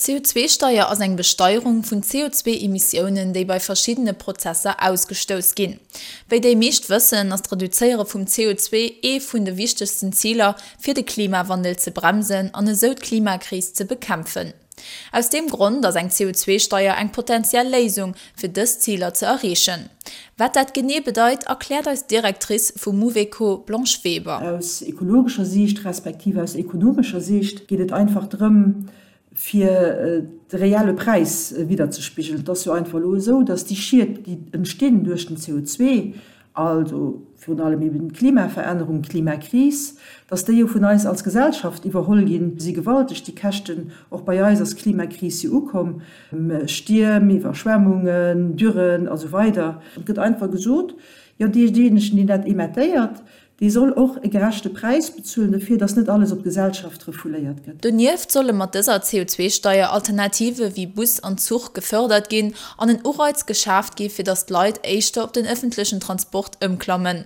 D'CO2-Steier ass eng Besteierung vun CO2-Emissiounen, déi bei verschiddene Prozesser ausgestouss ginn. Wéi déi meescht wëssen, ass d'Reduzéiere vum CO2 ee vun de wichtegsten Ziler, fir de Klimawandel ze bremsen an esou d'Klimakris ze bekämpfen. Aus deem Grond ass eng CO2-Steier eng potentiell Léisung, fir dës Ziler ze erreechen. Wat dat genee bedeit, erkläert eis d'Directrice vu Mouveco, Blanche Weber. Aus ekologescher Siicht respektiv aus ekonomescher Siicht geet et einfach drëm, fir de reelle Präis widderzespigelen. Et ass jo einfach elo esou, dass déi Schied, déi entstinn duerch den CO2, also virun allem eben d'Klimaverännerung, d'Klimakris, dass déi jo vun eis als Gesellschaft iwwerholl ginn, si gewalteg, déi Käschten. Och bei eis ass d'Klimakris jo ukomm, Stierm, Iwwerschwemmungen, Dürren a sou weider. Et gëtt einfach gesot, jo deejéinegen, deen dat emettéiert, Dee soll och e gerechte Präis bezuelen dofir, datt net alles op d'Gesellschaft refouléiert gëtt. Donieft solle mat dëser CO2-Steier Alternative wéi Bus an Zuch gefërdert ginn an en Ureiz geschaaft gi fir datt d'Leit éischter op den ëffentlechen Transport ëmklammen.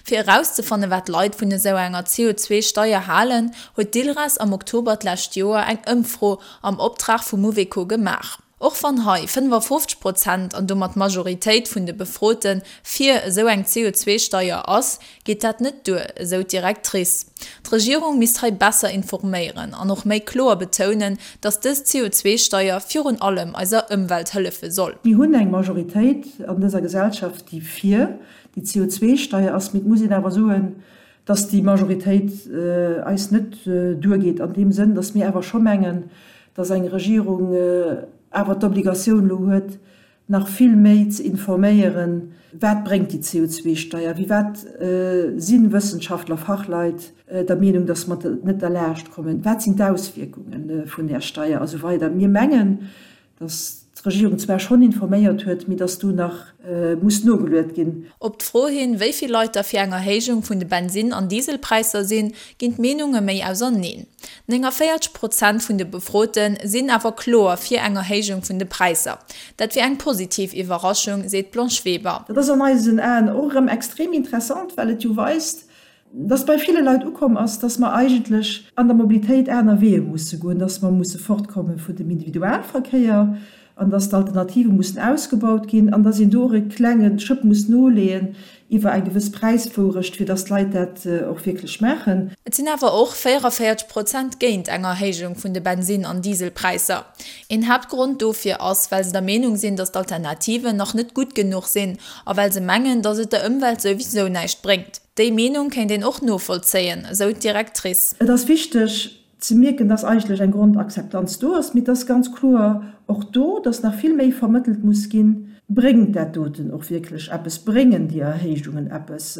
Fir erauszefanne wat d'Leit vun esou enger CO2-Steier halen, huet d'ILRAS am Oktober d'lescht Joer eng Ëmfro am Optrag vu Mouveco gemaach. Och wann hei 55 Prozent, an domat d'Majoritéit vun de Befrote fir esou eng CO2-Steier ass, geet dat net duer, esou d'Directrice. D'Regierung misst hei besser informéieren an och méi kloer betounen, datt dës CO2-Steier virun allem eiser Ëmwelt hëllefe soll. Mir hunn eng Majoritéit an dëser Gesellschaft, déi fir déi CO2-Steier ass, mee et muss een awer soen, datt déi Majoritéit eis net duergeet an deem Sënn, datt mir awer scho mengen, datt eng Regierung awer d'Obligatioun elo huet, nach vill méi ze informéieren, wat bréngt déi CO2-Steier, wéi wat si Wëssenschaftler, Fachleit der Meenung, datt mer net derlaascht kommen, wat sinn d'Auswierkunge vun där Steier a sou weider. Mir mengen, dass d'Regierung zwar schonn informéiert huet, mee dass do nach muss nogeluet ginn. Op d'Fro hin, wéi vill Leit da fir eng Erhéijung vun de Bensin an Dieselpräisser sinn, ginn d'Meenunge méi auserneen. 49 Prozent vun de Befrote sinn awer kloer fir eng Erhéijung vun de Präisser. Dat wier eng positiv Iwwerraschung, seet d'Blanche Weber. Dat ass an eisen Aen och erëm extrem interessant, well et jo weist, dass bei ville Leit ukomm ass, dass mer eigentlech an der Mobilitéit aner Weeë musse goen, dass mer musse fortkomme vun dem Individualverkéier an dass d'Alternative mussen ausgebaut ginn an dass een do och e klenge Schëpp muss noleeën iwwer eng gewëss Präiswourecht, fir dass d'Leit dat och wierklech maachen. Et sinn awer och 44 Prozent géint eng Erhéijung vun de Bensin an Dieselpräisser. Een Haaptgrond dofir ass, well se der Meenung sinn, dass d'Alternativen nach net gutt genuch sinn a well se mengen, dass et der Ëmwelt souwisou näischt bréngt. Déi Meenung kéint een och novollzéien, esou d'Directrice. Et ass wichteg ze mierken, dass eigentlech eng Grondakzeptanz do ass, mee et ass ganz kloer och do, dass nach vill méi vermëttelt muss ginn, Bréngt dat doten och wierklech eppes? Bréngen déi Erhéijungen eppes?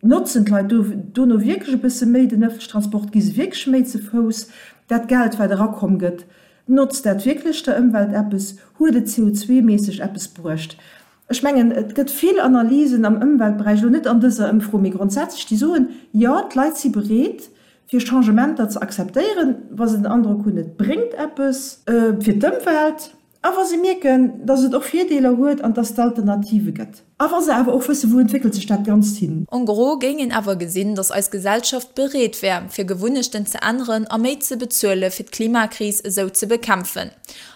Notzen d'Leit dono wierklech e bësse méi den ëffentlechen Transport? Gi se wierklech méi ze Fouss? Dat Geld, wat erakomm gëtt, notzt dat wierklech der Ëmwelt eppes? Huet et CO2-méisseg eppes bruecht? Ech mengen, et gëtt vill Analysen am Ëmweltberäich, elo net an dëser Ëmfro, mee grondsätzlech, déi soen, Jo, d'Leit si bereet, fir Changementer ze akzeptéieren, wa se den Androck hunn, et bréngt eppes fir d'Ëmwelt a wa se mierken, datt et och Virdeeler huet an datt et Alternative gëtt. A wa se awer och wëssen, wou entwéckelt sech dat Ganzt hin. En gros géing een awer gesinn, datt eis Gesellschaft bereet wär, fir Gewunnechten ze änneren a méi ze bezuele fir d'Klimakris esou ze bekämpfen.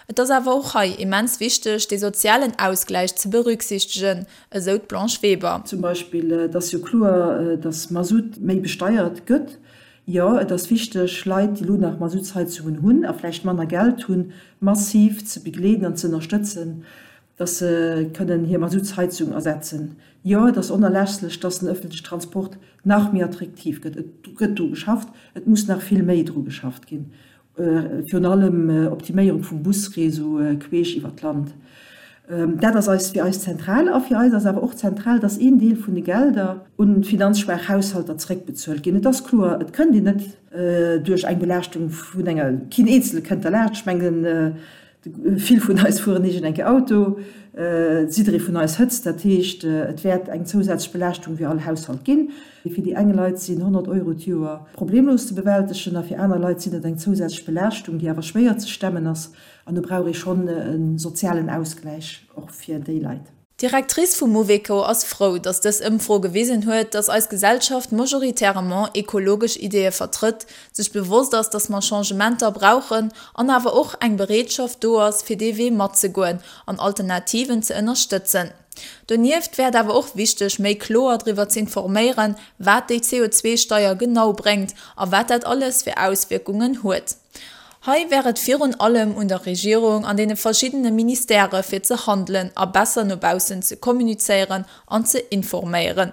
Et ass awer och hei immens wichteg, dee sozialen Ausgläich ze berücksichtegen, esou d'Blanche Weber. Zum Beispill, et ass jo kloer, datt Masutt méi besteiert gëtt. Jo, et ass wichteg, Leit, déi elo nach Masuttsheizungen hunn a vläicht manner Geld hunn, massiv ze begleeden an ze ënnerstëtzen, datt se kënnen hir Masuttsheizung ersetzen. Jo, et ass onerlässlech, datt den ëffentlechen Transport nach méi attraktiv gëtt. Et gëtt dru geschafft, et muss nach vill méi dru geschafft ginn. Virun allem Optiméierung vum Busréseau queesch iwwer d'Land. Dat ass eis fir eis zentral. A fir eis ass awer och zentral, dass een Deel vun de Gelder un finanzschwaach Haushalter zréckbezuelt ginn. Et ass kloer, et kënnt een net duerch eng Belaaschtung vun enger, keen Eenzele kënnt derlaanscht. Ech mengen, Vill vun eis fueren iergend eng Kéier Auto, jidderee vun eis hëtzt, dat heescht et wäert eng zousätzlech Belaaschtung fir all Haushalt ginn. Fir déi eng Leit sinn 100 Euro d'Joer problemlos ze bewältegen a fir aner Leit sinn et eng zousätzlech Belaaschtung, déi awer schwéier ze stemmen ass an do brauch ee schonn e sozialen Ausgläich och fir déi Leit. D'Directrice vum Mouveco ass frou, datt dës Ëmfro gewisen huet, datt eis Gesellschaft majoritairement ekologesch Ideeë vertrëtt, sech bewosst ass, datt mer Changementer brauchen an awer och eng Bereetschaft do ass, fir dee Wee matzegoen an Alternativen ze ënnerstëtzen. Donieft wär et awer och wichteg, méi kloer driwwer z'informéieren, wat déi CO2-Steier genau bréngt a wat dat alles fir Auswierkungen huet. Hei wär et virun allem un der Regierung an deene verschiddene Ministèrë fir ze handelen a besser no baussen ze kommunizéieren an ze informéieren.